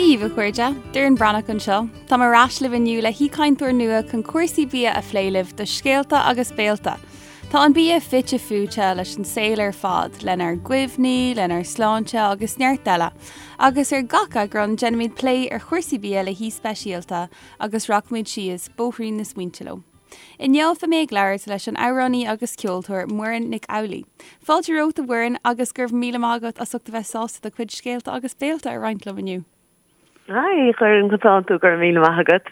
Dia dhaoibh, a chairde! Doireann Breathnach anseo. Táim ar ais libh inniu le haoichainteoir nua chun cúrsaí bia a phlé libh do Scéalta agus Béalta. Tá an bia fite fuaite leis an saol ar fad, lenár gcuimhní, lenár sláinte agus neart eile. Agus ar gach eagrán déanaimid plé ar chúrsaí bia le haoi speisialta agus rachaimid síos bóithrín na smaointe leo. Inniu beidh mé ag labhairt leis an amhránaí agus ceoltóir Muireann Nic Amhlaoibh. Fáilte romhat a Mhuireann agus go raibh míle maith agat as ucht a bheith sásta do chuid scéalta agus béalta a roinnt liom inniu. Hi, a Dhoireann, conas tánn tú, go raibh míle maith agat.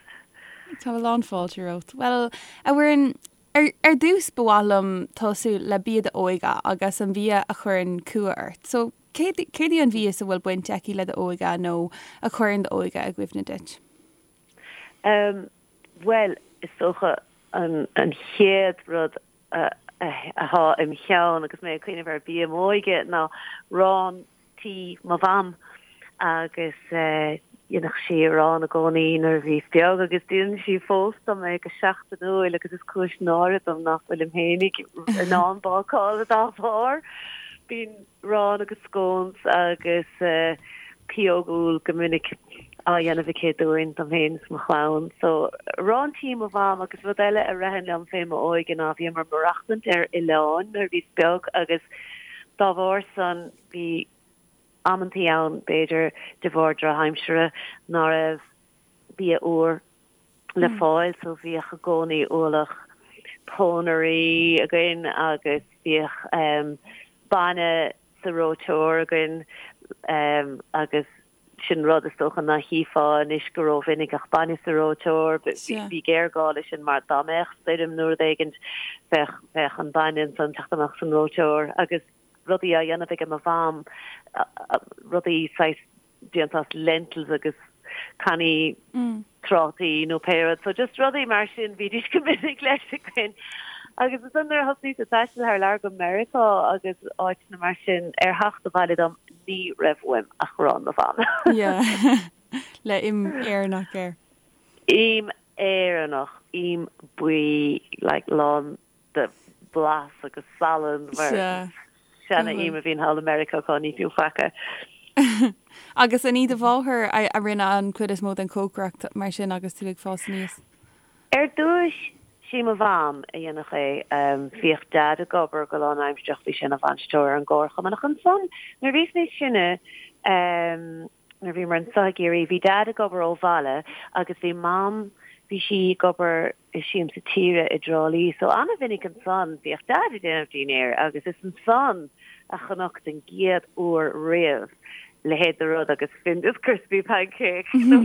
Tá a lán fáilte romhat. Bhuel, a Mhuireann, ar, ar dtús ba mhaith liom tosú le bia d'óige agus an bia a chuireann cumha ort. So, céard, céard í an mhias a bhfuil baint aici le d'óige nó a chuireann d'óige i gcuimhne duit? Um, Bhuel, is dócha an chéad rud atá im cheann agus mé ag cuimhneamh ar bia m'óige ná arán tí mo mham agus dhéanadh sí arán i gcónaí nuair a bhíos beag agus déanann sí fós dom é go seachtainiúil agus is cúis náire dom nach bhfuilim féinig in ann bácáil dá bharr. Bíonn arán agus scones agus pióg úll go minic á dhéanamh aici dúinn, dom féin is mo chlann. So, arán tí mo mham agus rud eile a ritheann liom fé m'óige ná bhíomar maireachtaint ar oileán nuair a bhíos beag agus dá bharr san bhí amantaí ann, b'fhéidir de bharr drochaimsire, ná raibh bia úr le fáil so bhíodh i gcónaí ualach pónairí againn agus bhíodh bainne sa reoiteoir againn agus sin rud is dócha ná chífeá anois go rómhinic ach bainne sa reoiteoir, bhí géarghá leis sin mar dá mbeadh stoirm nó rud éigint bheadh bheadh an bainne ansan teacht amach san reoiteoir agus rudaí á dhéanamh ag mo mham, rudaí saghas déanta as lentils agus cannaí trátaí nó pé rud. So just rudaí mar sin bhídís go minic leis againn. Agus ansan nuair a thosnaíos ag taisteal thar lear go Meiriceá agus áiteanna mar sin, ar theacht abhaile dom ní raibh uaim ach arán mo mham. Yeah. Le im Éireannach air. Im Éireannach, im buí like lán de bhlas agus salann mar seana im a bhíonn thall i Meiriceá cá ní fiú faic. Agus an í do mháthair a rinne an chuid is mó den chócaireacht mar sin agus tú ag fás aníos? Ar dtúis, sí mo mham a dhéanadh é. Bhíodh Deaid ag obair go lánaimsearach, bhí sé ina bhainisteoir ar an gcomharchumann. Ach ansan, nuair a bhíos níos sine, nuair a bhíomar anseo i gCiarraí, bhí Deaid ag obair ó bhaile agus bhí Mam, bhí sí ag obair i Siamsa Tíre i dTrá Lí. So an-mhinic ansan bhíodh Deaid ag déanamh dinnéir agus is ansan a chonac den gcéad uair riamh leithéid de rud agus Findus crispy pancake nó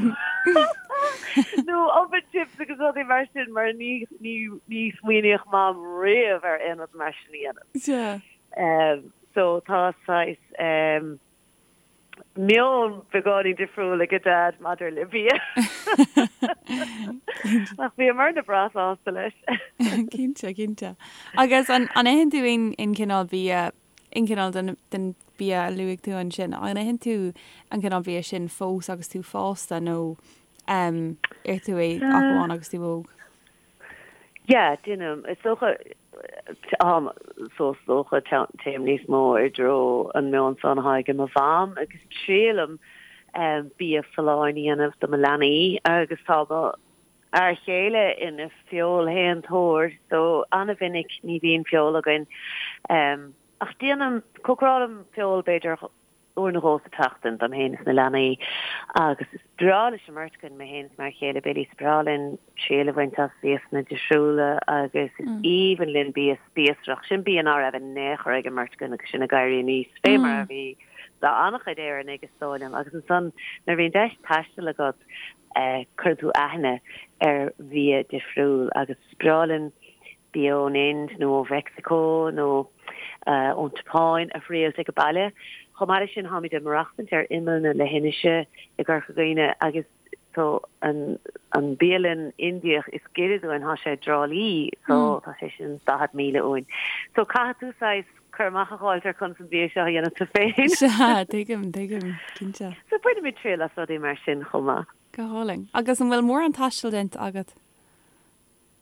nó oven chips agus rudaí mar sin mar ní ní ní smaoiníodh Mam riamh ar aon rud mar sin a dhéanamh. Sea. So tá saghas meon beagáinín difriúil ag Deaid maidir le bia. Ach bhíomarna breá sásta leis. Cinnte, cinnte. Agus an itheann tú aon chineál bia, aon chineál den bia a luaigh tú ansin, an itheann tú an cineál bia sin fós agus tú fásta nó ith tú é ach amháin agus tú óg? Yeah, déanaim. Is dócha, um, so is dócha téim níos mó i dtreo an meon san atá ag mo mham agus triailim um, bia folláin a dhéanamh do mo leanaí agus tá mo fhear chéile ina feoilshéantóir so an-mhinic ní bhíonn feoil againn. Um, ach déanaim, cócarálaim feoil b'fhéidir uair nó dhó sa tseachtain dom féin is na leanaí agus is breá leis an mbeirt againn, mé féin is m'fhear chéile Billy, is breá linn triail a bhaint as mhiasanna difriúla agus is aoibhinn linn bia spíosrach, sin bia ná raibh in aon chor ag an mbeirt againn agus sinn ag éirí aníos, fé mar a bhí do an-chuid Éireannaigh is dóigh liom agus ansan nuair a bhíonn deis taistil agat cuireann tú aithne ar bhia difriúil agus is breá linn bia ón Ind nó ó Mheicsiceo nó ón tSeapáin a thriailt ag baile. Chomh maith leis sin, táimid ag maireachtaint ar imeall na leithinise i gCorca Dhuibhne agus so an an bialann Indiach is giorra dúinn, tá sé i dTrá Lí, so tá sé sin 40 míle uainn. So caithfidh tú saghas cur amach a dh'fháilt ar conas an bia seo a dhéanamh tú féin. Sea, tuigim, tuigim, cinnte. So bainimid triail as rudaí mar sin chomh maith. Go hálainn. Agus an bhfuil mórán taistil déanta agat?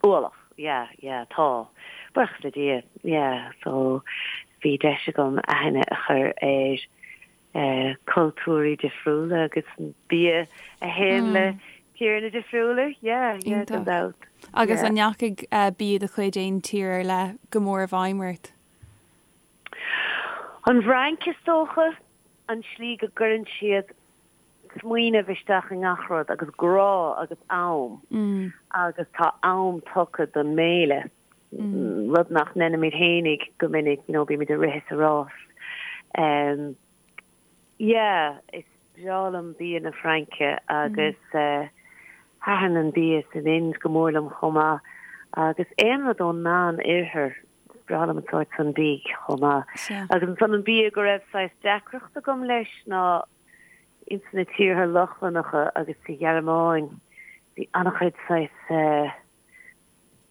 Ualach, yeah, yeah, tá. Buíochas le Dia, yeah, so bhí deis agam aithne a chur ar. Cultúirí difriúla agus an bia a théann le tíreanna difriúla, yeah, yeah, gan dabht. Agus an ndeachaigh bia de chuid aon tír ar leith go mór i bhfeidhm ort? An Fhrainc is dócha, an tslí go gcuireann siad smaoineamh isteach i ngach rud agus grá agus am agus tá am tugtha don mbéile, rud nach ndeinimid fhéinig go minic, you know, bímid ag rith is ag rás. Um, yeah, is breá liom bia na Fraince agus eh, thaitin an bia san Ind go mór liom chomh maith agus aon rud ón Meán Oirthear, is breá liom an sórt san bídh chomh maith. Agus ansan an bia go raibh saghas deacracht agam leis ná ins na tíortha Lochlannacha agus sa Ghearmáin bhí an-chuid saghas eh,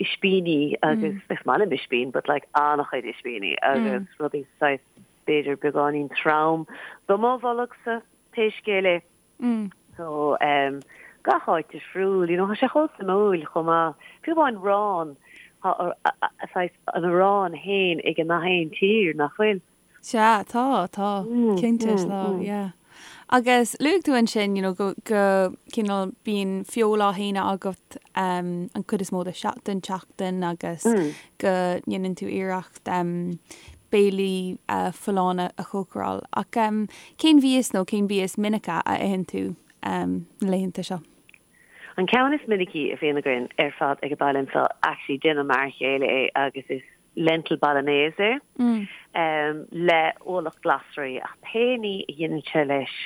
ispíní agus is maith liom ispín but like an-chuid ispíní agus rudaí saghas b'fhéidir beagáinín trom do mo bholgsa pé scéal é. So um, gach áit difriúil, you know, tá sé chomh suimiúil chomh maith. Fiú amháin arán, tá saghas an arán féin ag gach aon tír, nach bhfuil? Sea, tá, tá, cinnte, tá, yeah. Agus luaigh tú ansin, you know, go, go cineál bíonn feoil á shéanadh agat um, an chuid is mó de, den tseachtain agus go ndéanann tú iarracht um, béilí uh, folláine a chócaráil. Ach um, cén mhias nó cén bia is minice a itheann tú um, na laethanta seo? An ceann is minicí a bhíonn againn ar fad ag an baile anseo, actually déanann m'fhear chéile é agus is lentil bolognese le ualach glasraí ach pé ní a dhéanann sé leis,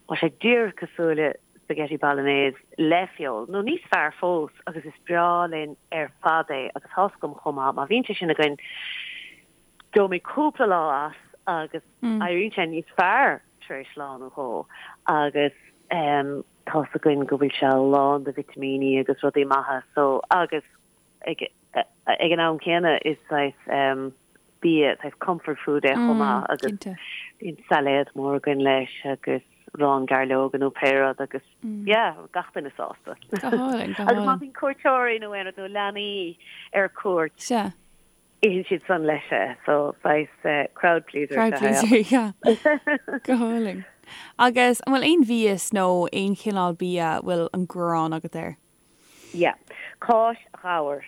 tá sé díreach cosúil le spaghetti bolognese le feoil, nó níos fearr fós agus is breá linn ar fad é agus tá's agam chomh maith má bhíonn sé sin againn gheobhaimid cúpla lá as agus éiríonn sé níos fearr tar éis lá nó dhó agus tá's againn go bhfuil sé lán de vitimíní agus rudaí maithe so agus ag ag an am céanna is saghas bia, saghas comfort food é chomh maith agus bíonn sailéad mór againn leis agus arán gairleoga nó pé rud agus yeah, gach duine sásta. Go hálainn, go hálainn. Agus má bhíonn cuairteoirí nó aon rud nó leanaí ar cuairt, itheann siad san leis é, so saghas crowd pleaser. Crowd pleaser, yeah. Go hálainn. Agus an bhfuil aon mhias nó aon chineál bia a bhfuil an ghráin agat air? Yeah. Cáis ghabhair.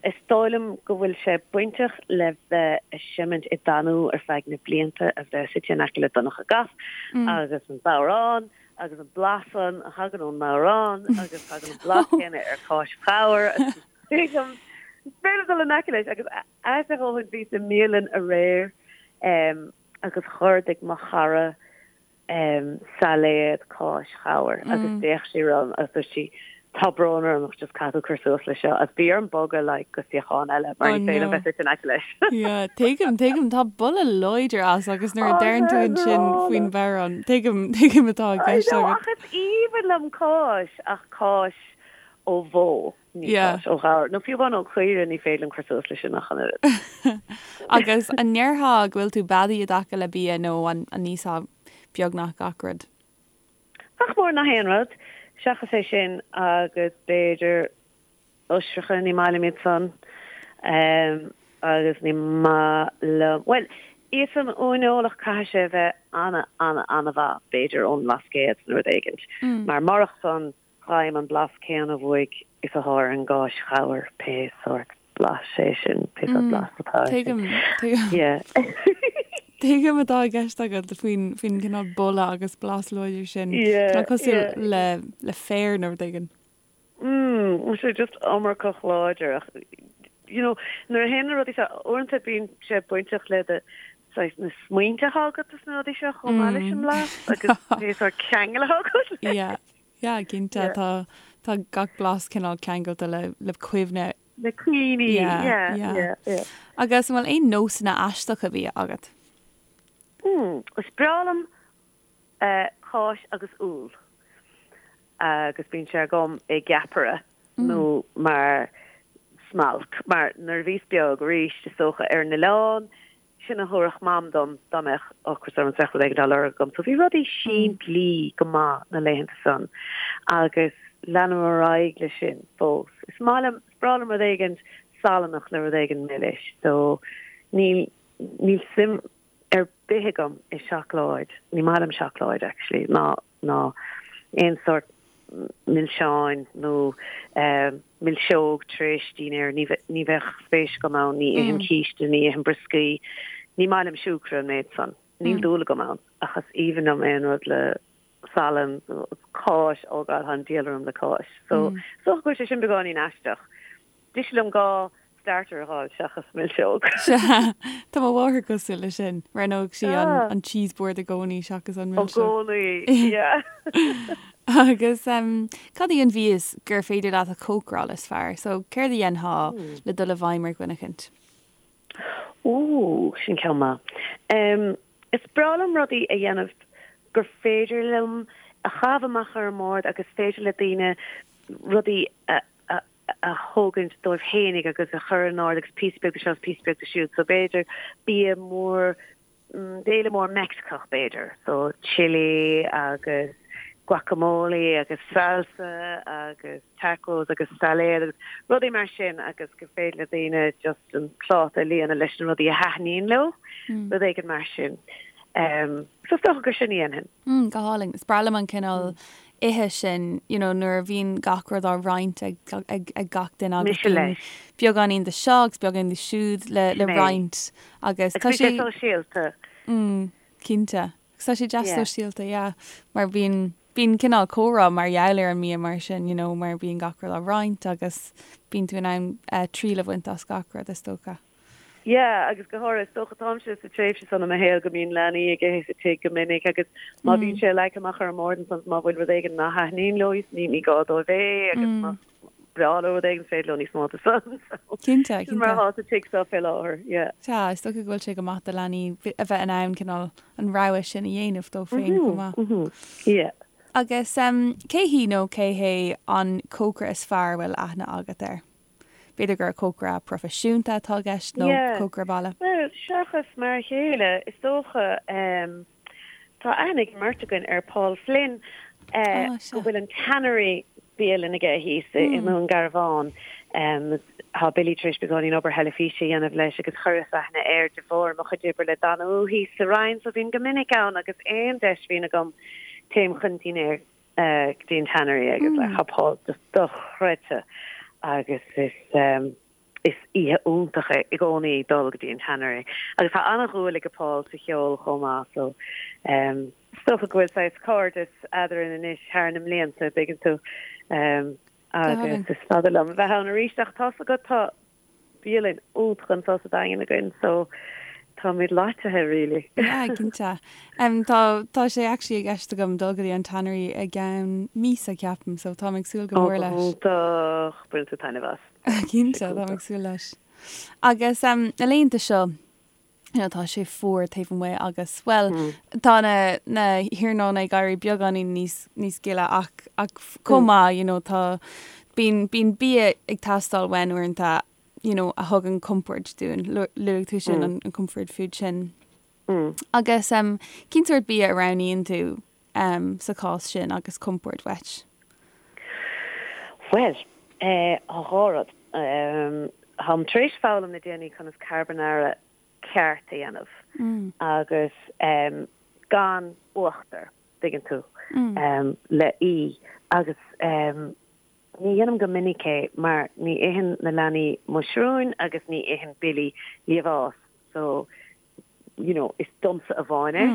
Is dóigh liom go bhfuil sé bainteach le bheith ag seimint i dTanú ar feadh na blianta a bheith suite in aice le Donncha Gap agus an bodhrán agus an blas san a thagann ón mbodhrán agus tagann an blas céanna ar cháis ghabhair agus tuigim is féidir liom dul in aice leis agus ait a dhóthain bhíos i mbialann aréir agus dh'ordaigh mo chara sailéad cáis ghabhair agus d'fhéach sí orm agus dúirt sí tá brón orm ach just caithfidh tú cur suas leis seo agus bhí orm bogadh like go suíochán eile mar ní féidir liom bheith suite in aice leis. Yeah, tuigim, tuigim, tá boladh láidir as agus nuair a deireann tú ansin faoin bhodhrán, tuigim, tuigim atá i gceist agat. Ach is aoibhinn liom cáis ach cáis ó bhó. Ní Yeah. cáis ó ghabhar. Nó fiú amháin ó chaoire ní féidir liom cur suas leis sin ach an oiread. Agus an ndéarfá go bhfuil tú beadaí i dtaca le bia nó an n-íosfá beagnach gach rud? Nach mór nach aon rud, seachas é sin agus b'fhéidir oisreacha, ní maith liom iad san. Agus ní maith liom, bhuel, íosfainn uaineoil ach caithfidh sé a bheith ana, ana, ana-mhaith, b'fhéidir ón mBlascaod nó rud éigint. Mar murach san, Faighim an blas céanna uaidh is atá ar an gcáis ghabhair, pé sórt blais é sin, pé sórt blas atá air sin. Tuigim, tuigim. Yeah. Tuigim atá i gceist agat faoin, faoin gcineál boladh agus blas láidir sin. Yeah, Cineál cosúil yeah. le, le féar nó rud éigin. Mm, tá sé just iomarcach láidir ach, you know, nuair a théann na rudaí seo, uaireanta bíonn sé bainteach le do, saghas na smaointe atá agat is na rudaí seo chomh maith leis an mblas agus pé sórt ceangal atá agat leis. Yeah. Yeah, cinnte. Yeah. Tá, tá gach blas cineál ceangailte le, le cuimhne. Le cuimhní, Yeah, yeah, yeah. yeah, yeah. Agus an bhfuil aon nósanna aisteacha bia agat? Mm, is breá liom eh, cáis agus úll. Agus bíonn sé agam i gceapaire nó mar smailc. Mar nuair a bhíos beag arís, is dócha, ar an oileán, Sin a thabharfadh Mam dom dá mbeadh ocras orm is bheadh rud éigin á lorg agam. So bhí rudaí simplí go maith na laethanta san agus leanaim ar aghaidh leis sin fós. Is maith liom, is breá liom rud éigin salannach le rud éigin milis. So níl, níl suim ar bith agam i seacláid, ní maith liom seacláid actually, ná ná aon sórt milseáin nó milseog tar éis dinnéir, ní ní bheadh spéis agam ann, ní ithim císte, ní ithim brioscaí, ní maith liom siúcra an méid san, níl dúil agam ann ach is aoibhinn liom aon rud le salann, cáis, oh God, tá an diabhal orm le cáis. So, is dócha go bhfuil sé sin beagáinín aisteach. Deise liom dhá starter a fháil seachas milseog. Sea, tá mo mháthair cosúil leis sin. Roghnódh sí an cheese board i gcónaí seachas an milseog. I gcónaí, yeah. Agus cad í an mhias gur féidir leat a chócaráil is fearr? So, céard a dhéanfá le dul i bhfeidhm ar dhuine eicint? Ooh, sin ceann maith. Is breá liom rudaí a dhéanamh gur féidir liom a chaitheamh amach ar an mbord agus féidir le daoine rudaí a a thógaint dóibh fhéinig agus a chur in ord agus píosa beag de seo is píosa beag de siúd. So b'fhéidir bia mór, béile mór Meicsiceach b'fhéidir. So chili agus guacamole agus salsa agus tacos agus sailéad agus rudaí mar sin agus gur féidir le daoine just an pláta a líonadh leis na rudaí a thaitníonn leo, rud éigin mar sin. So is dócha gur sin a dhéanfainn. Mm, go hálainn. Is breá liom an cineál ithe sin, you know, nuair a bhíonn gach rud á roinnt ag, ag, ag gach duine agus Mise leis. beagáinín de seo agus beagáinín de siúd le, le Sin é. roinnt agus Agus tá bíonn sé sé, sóisialta. mm, cinnte. Agus tá sé deas Yeah. sóisialta, yeah, mar bíonn, bíonn cineál comhrá mar gheall ar an mbia mar sin, you know, mar bíonn gach rud á roinnt agus bíonn tú in ann eh, triail a bhaint as gach rud is dócha. Yeah, agus go háirithe, is dócha, táimse sa tréimhse san i mo shaol go mbíonn leanaí ag ithe sa tigh go minic agus má bhíonn sé leagtha amach ar an mbord ansan má bhfuil rud éigin nach thaitníonn leo ní ní gá dóibh é agus más breá leo rud éigin is féidir leo níos mó de san. So, Cinnte, sin mar cinnte. atá sa tigh seo fé láthair, yeah. Sea, is dócha go bhfuil sé go maith do leanaí a bheith in ann cineál an rogha sin a dhéanamh dóibh féin chomh maith. Mhm, yeah. Agus cé hí nó cé hé an cócaire is fearr a bhfuil aithne agat air? B'fhéidir gur cócaire proifisiúnta atá i gceist nó cócaire baile. Bhuel, seachas mar a chéile, is dócha. Tá aithne ag an mbeirt againn ar Paul Flynn, go bhfuil an Tannery bialann aige thíos i nDún Garbhán. Tá Billy tar éis beagáinín obair theilifíse a dhéanamh leis agus chuireas aithne air de bharr mo chuid oibre le Danú thíos sa Rinn, so bím go minic ann agus aon deis a bhíonn agam téim chun dinnéir. go dtí an Tannery agus like tá Paul just dochreidte agus is is oíche iontach é i gcónaí dul go dtí an Tannery agus tá an-dhúil ag Paul sa cheol chomh maith so is dócha go bhfuil saghas cairdeas eadrainn anois thar na mblianta, dtuigeann tú agus is fada liom a bheith ann arís ach tá's agat tá bialann iontach anseo sa Daingean againn so táimid loitithe really. Yeah, cinnte. Um, tá, tá sé actually i gceist agam dul go dtí an Tannery i gceann míosa ceapaim, so táim ag súil go Ó, mór go leis. hiontach, bainfidh tú taitneamh as. Cinnte, táim ag súil leis. Agus um, na laethanta seo, you know, tá sé fuar taobh amuigh agus, well, tá na, na hiarnóna ag éirí beagáinín níos, níos gile ach, ach chomh maith, you know, tá, bíonn, bíonn bia ag teastáil uainn uaireanta, you know, a thugann compord dúinn. Luaigh tú sin, an, an comfort food sin. Agus um, cén sórt bia a roghnaíonn tú um, sa chás sin agus compord uait? Bhuel, eh, tá dhá rud. Um, táim tar éis foghlaim le déanaí conas carbonara ceart a dhéanamh agus um, gan uachtar, dtuigeann tú, um, le í agus um, ní dhéanaim go minic é mar ní itheann na leanaí muisriúin agus ní itheann Billy liamhás so you know, is domsa amháin é.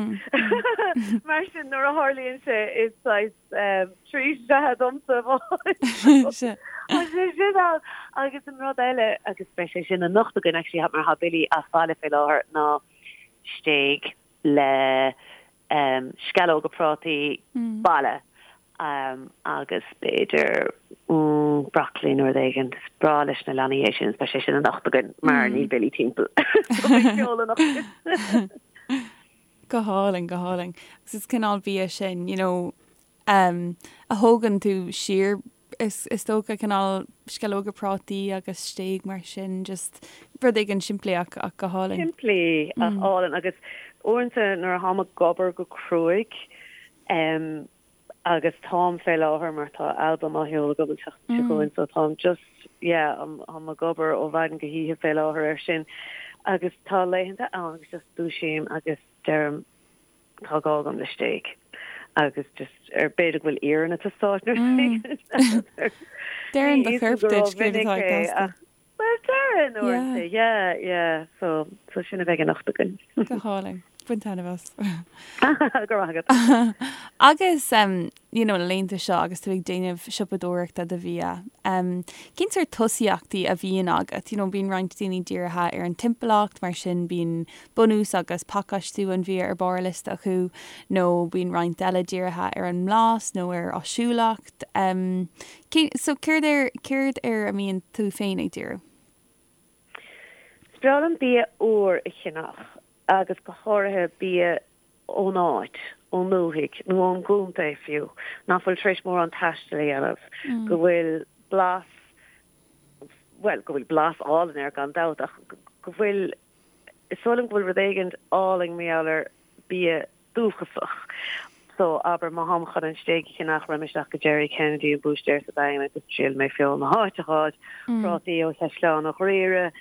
Mar sin nuair a tharlaíonn sé is saghas treat é domsa amháin. Sea. Tá sé sin ann. Agus an rud eile, agus beidh sé sin anocht againn actually mar tá Billy as baile fé láthair, ná stéig le sceallóga prátaí baile. agus b'fhéidir broccoli nó rud éigin. Is breá leis na leanaí é sin, is beidh sé sin anocht againn mar níl Billy timpeall. So beidh ceol anocht. Go hálainn, go hálainn. Agus is cineál bia sin, you know, um, a thógann tú siar is, is dócha cineál sceallóga prátaí agus stéig mar sin, just rud éigin simplí ach, ach go hálainn. Simplí ach álainn agus uaireanta nuair a tháim ag obair go cruaidh, um, agus táim fé láthair mar tá albam á sheoladh agam an tseachtain seo chugainn so táim just yeah táim ag obair ó mhaidin go hoíche fé láthair air sin agus tá laethanta ann agus just dúisím agus. deirim tá gá agam le stéig agus just ar b'fhéidir go bhfuil iarann ag teastáil nó rud éigin. Deireann do chorp duit céard atá ag teastáil. Bhuel, deireann uaireanta, yeah, yeah, so, so sin a bheidh anocht againn. Go hálainn. Bain taitneamh as. Go raibh maith agat. Agus, um, you know, na laethanta seo agus tú ag déanamh siopadóireachta do bhia, um, cén sórt tosaíochtaí a bhíonn agat? You know, bíonn roinnt daoine dírithe ar an timpeallacht, mar sin bíonn bunús agus pacáistiú an bhia ar barr a liosta acu, nó bíonn roinnt eile dírithe ar an mblas nó ar áisiúlacht. Um, So, céard ar, céard air a mbíonn tú féin ag díriú? Is breá liom bia úr a cheannach agus go háirithe bia ón áit, ón ndúthaigh nó ón gcontae fiú, nach bhfuil tar éis mórán taistil a dhéanamh, go bhfuil blas, bhuel, go bhfuil blas álainn air gan dabht ach go bhfuil, is dóigh liom go bhfuil rud éigin álainn mar gheall ar bia dúchasach. So, abair, má tháim chun an stéig a cheannach, raghaidh mé isteach go Jerry Kennedy, an búistéir sa Daingean agus triailfidh mé feoil na háite a fháil, prátaí ó Chaisleán an Ghriaire,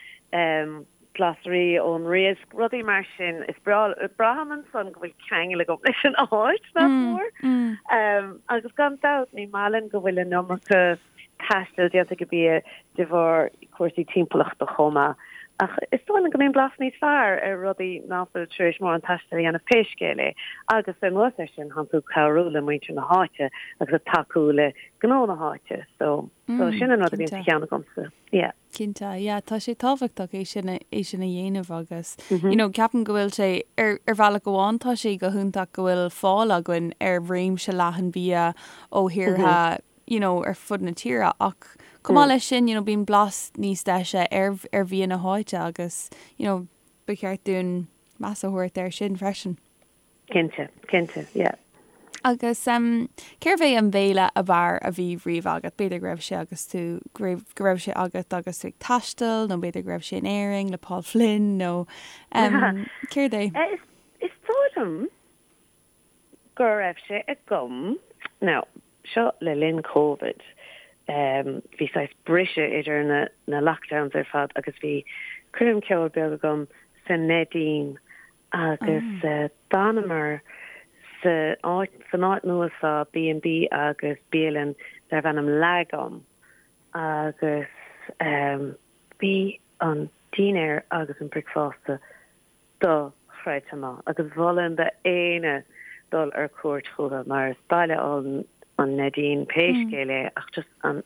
glasraí ón Riasc, rudaí mar sin. Is breá, braithim ansan go bhfuil ceangal agam leis an áit, nach mór. Agus gan dabht, ní maith linn go bhfuil an iomarca taistil déanta ag an bia de bharr cúrsaí timpeallachta chomh maith. Ach is dóigh liom go mbíonn blas níos fearr ar rudaí ná fuil tar éis mórán taistil a dhéanamh pé scéal é. Agus anuas air sin, tánn tú ag cabhrú le muintir na háite agus ag tacú le gnó na háite. So, so sin an rud a bhíonn sa cheann agamsa. Yeah. Cinnte, yeah, tá sé tábhachtach é sin é sin a dhéanamh agus, you know, ceapaim go bhfuil sé, ar ar bhealach amháin tá sé go hiontach go bhfuil fáil againn ar réimse leathan bia ó thíortha you know, ar fud na tíre ach chomh maith leis sin, you know, bíonn blas níos deise ar, ar bhia na háite agus, you know, ba cheart dúinn meas a thabhairt air sin freisin. Cinnte, cinnte, yeah. Agus um, cérbh é an béile ab fhearr a bhí riamh agat? B'fhéidir go raibh sé agus tú, go raibh, go raibh sé agat agus tú ag taisteal nó b'fhéidir go raibh sé in Éirinn le Paul Flynn nó um, céard é? Eh, is, is dóigh liom go raibh sé agam, now, seo le linn Covid, bhí saghas briseadh idir na na lockdowns ar fad agus bhí coirm ceoil beag agam sa Neidín agus d'fhanamar sa áit san áit nua seo B&B agus bialann darbh ainm Lagom agus bhí an dinnéar agus an bricfeasta dochreidte maith agus mholfainn d'éinne dul ar cuairt chucu mar is baile álainn an Neidín pé scéal é ach just an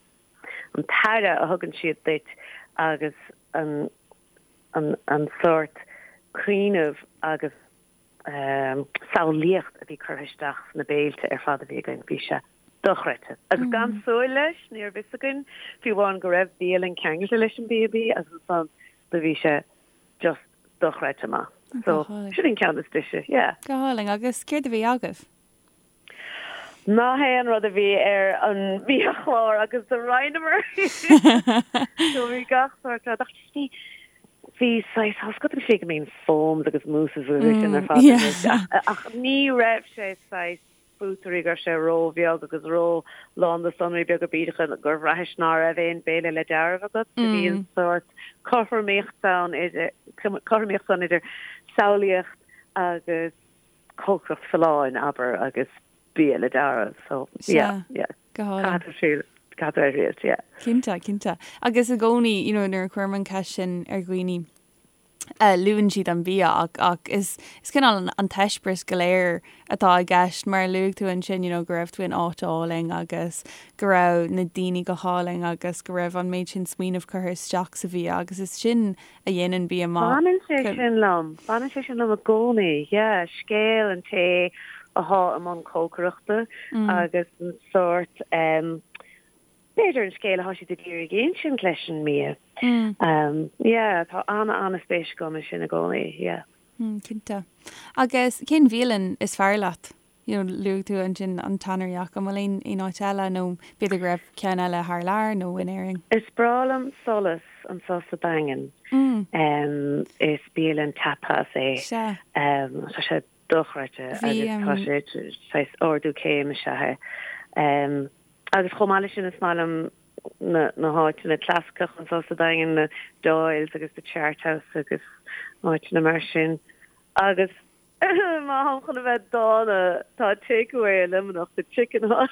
an t-aire a thugann siad duit agus an an an sórt cuimhneamh agus samhlaíocht a bhí curtha isteach sna béilte ar fad a bhí againn bhí sé dochreidte. Agus gan súil leis ní raibh fhios againn fiú amháin go raibh bialann ceangailte leis an B&B agus ansan do bhí sé just dochreidte maith. So, sin an ceann is deise, yeah. Go hálainn. Agus céard a bhí agaibh? Nach aon rud a bhí ar an mbiachlár agus do roinneamar. So bhí gach sórt rud ach just bhí bhí saghas tá a fhios agat an tslí go mbíonn foams agus mousses agus sin ar fad anois ach ní raibh sé saghas buttery go raibh sé ró-bheag agus ró-lán de sonraí beaga bídeacha gur bhraithis ná raibh aon béile le dealramh agat. Do bhí an sórt cothromaíocht ann idir, cothromaíocht ann idir samhlaíocht agus cócaireacht folláin, abair, agus bia le dealramh. So, yeah, yeah. Go hálainn. Caithfidh tú triail, caithfidh tú é a thriailt, yeah. Cinnte, cinnte. Agus i gcónaí, you know, nuair a chuirim an cheist sin ar dhaoine, luann siad an bia ach ach is is cineál an an t-eispéireas go léir atá i gceist mar a luaigh tú ansin you know go raibh tú in áit álainn agus go raibh na daoine go hálainn agus go raibh an méid sin smaoineamh curtha isteach sa bhia agus is sin a dhéanann bia maith. Baineann sé sin liom, baineann sé sin liom i gcónaí, yeah, scéal an té athá i mbun cócaireachta agus an sórt em B'fhéidir an scéal atá siad ag iarraidh a insint leis an mbia. Yeah, tá an-an-spéis agam i sin i gcónaí, yeah. Cinnte. Agus cén bhialann is fearr leat? You know, luaigh tú ansin an Tannery ach an bhfuil aon aon áit eile nó b'fhéidir go raibh ceann eile thar lear nó in Éirinn? Is breá liom Solas anseo sa Daingean. Is bialann tapas é. Sea. Tá sé dochreidte agus tá sé saghas ardú céime is ea é. Agus chomh maith leis sin is maith liom na na háiteanna clasaiceacha anseo sa Daingean, na Doyles agus the Chart House agus áiteanna mar sin. Agus. Má tháim chun a bheith dána, tá takeaway i Luimneach, The Chicken Hut.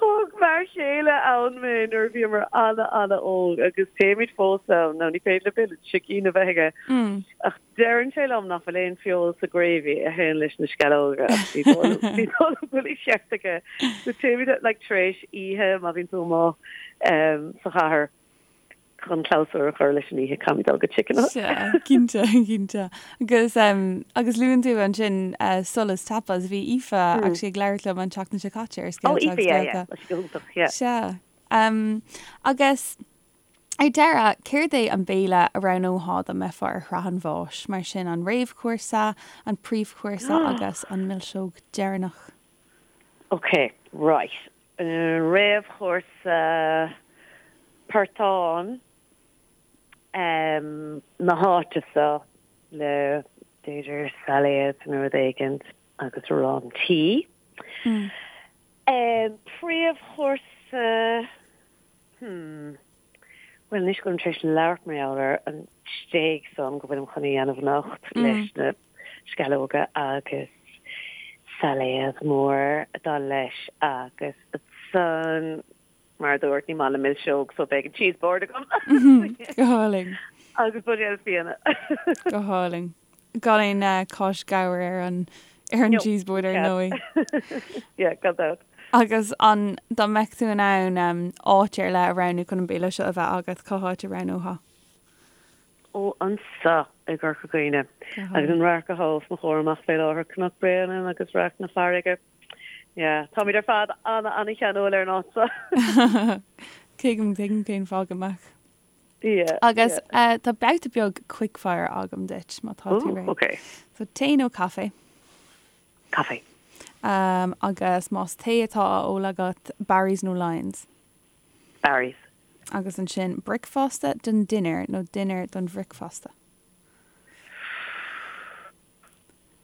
Thug m'fhear chéile ann mé nuair a bhíomar ana-ana-óg agus téimid fós ann. Now ní féidir le béile sicín a bheith aige ach deireann sé liom nach bhfuil aon feoil sa gravy a théann leis na sceallóga ach ní dóigh liom ní dóigh liom go bhfuil an ceart aige. So téimid like tar éis oíche má bhíonn tú amuigh sa chathair. chun clabhsúr a chur leis an oíche, caithfimid dul go Chicken Hut. Sea, cinnte, cinnte. Agus, agus luann tú ansin Solas Tapas, bhí Aoife actually ag labhairt liom an tseachtain seo caite ar Scéalta agus Béalta. Oh, Aoife, yeah, yeah, tá sí go hiontach, yeah. Sea. Agus ar deireadh, céard é an béile a roghnófá dá mbeifeá ar shraith an bháis? Mar sin, an réamhchúrsa, an príomhchúrsa agus an milseog deireanach. Ok, right. Réamhchúrsa portán na háite seo le b'fhéidir sailéad nó rud éigint agus arán tí. Príomhchúrsa, hmm, bhuel anois go bhfuilim tar éis labhairt mar gheall ar an stéig san go bhfuilim chun a dhéanamh anocht leis na sceallóga agus sailéad mór ag dul leis agus ansan, mar a dúirt, ní maith liom milseog so beidh an cheese board agam. Go hálainn. Agus buidéal fíona. Go hálainn. Gan aon cáis ghabhair ar an ar an cheese board ar ndóigh. Yeah, gan dabht. Agus an dá mbeadh tú in ann áit ar leith a roghnú chun an béile seo a bheith agat, cá háit a roghnófá? Ó anseo i gCorca Dhuibhne agus an radharc atá os mo chomhair amach fé láthair, Cnoc Bréanainn agus radharc na farraige. Yeah, táimid ar fad ana-ana-cheanúil ar an áit seo. Tuigim, tuigim cén fáth go mbeadh. Yeah, Agus yeah. tá babhta beag quickfire agam duit má tá tú réidh. Okay. So tae nó caife? Caife. Um, agus más tae atá á ól agat, Barry's nó Lyons? Barry's. Agus ansin bricfeasta don dinnéar nó dinnéar don bhricfeasta?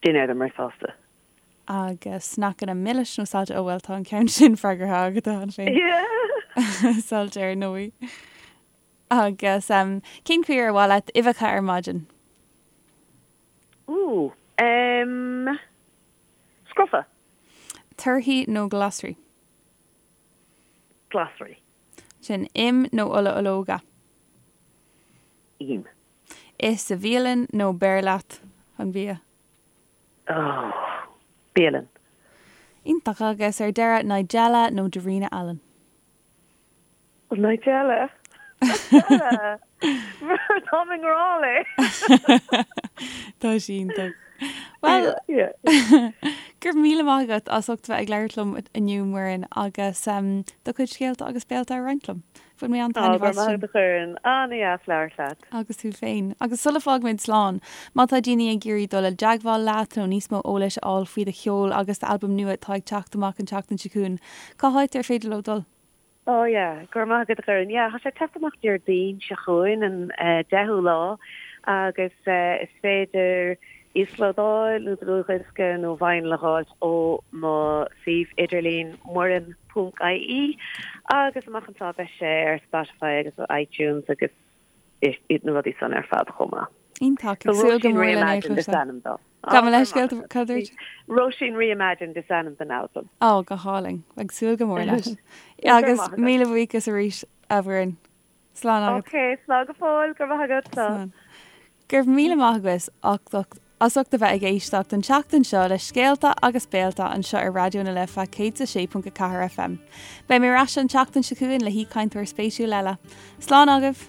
Dinnéar don mbricfeasta. Agus sneaiceanna milis nó saillte? Ó bhuel tá an ceann sin freagartha agat cheana féin. Yeah! Saillte ar ndóigh. Agus cén chaoi ar mhaith leat uibheacha ar maidin? Ooh, em, scrofa. Torthaí nó glasraí? Glasraí. Sin im nó ola ológa? Im. Ith sa bhialann nó beir leat an bia? Oh, bialann. Iontach. Agus ar deireadh, Nigella nó Darina Allen? Nigella. Nigella! Táim i ngrá léi. Tá sí iontach. Bhuel, go raibh míle maith agat as ucht bheith ag labhairt liom inniu, Muireann, agus do chuid scéalta agus béalta a roinnt liom. Bhain mé an-taitneamh as sin. Go raibh maith agat, a Dhoireann. An-dheas labhairt leat. Agus tú féin. Agus sula bhfágaimid slán, má tá daoine ag iarraidh dul i dteagmháil leat nó níos mó eolais a fháil faoi do cheol agus d'albam nua atá ag teacht amach an tseachtain seo chugainn, cá háit ar féidir leo dul? Oh yeah, go raibh maith agat a Dhoireann. Yeah, tá sé ag teacht amach Déardaoin seo chugainn, an 10ú lá, agus is féidir íoslódáil nó dlúthdhiosca nó vinyl a dh'fháilt ó mo suíomh idirlín muireann ponc ie agus amach anseo beidh sé ar Spotify agus iTunes agus na rudaí san ar fad chomh maith. Iontach, ag súil go mór lena Róisín Reimagined is ainm dó. Gabh mo leithscéal, cad a dúirt? Róisín Reimagined is ainm don albam. Ó, go hálainn. Ag súil go mór leis. Agus míle buíochas arís, a Mhuireann. Slán agat. Ok, slán go fóill, go raibh maith agat. Slán. Go raibh míle maith agat as ucht a bheith ag éisteacht an tseachtain seo le Scéalta agus Béalta anseo ar Raidió na Life 106.4 FM. Beidh mé ar ais an tseachtain seo chugainn le haoichainteoir spéisiúil eile. Slán agaibh!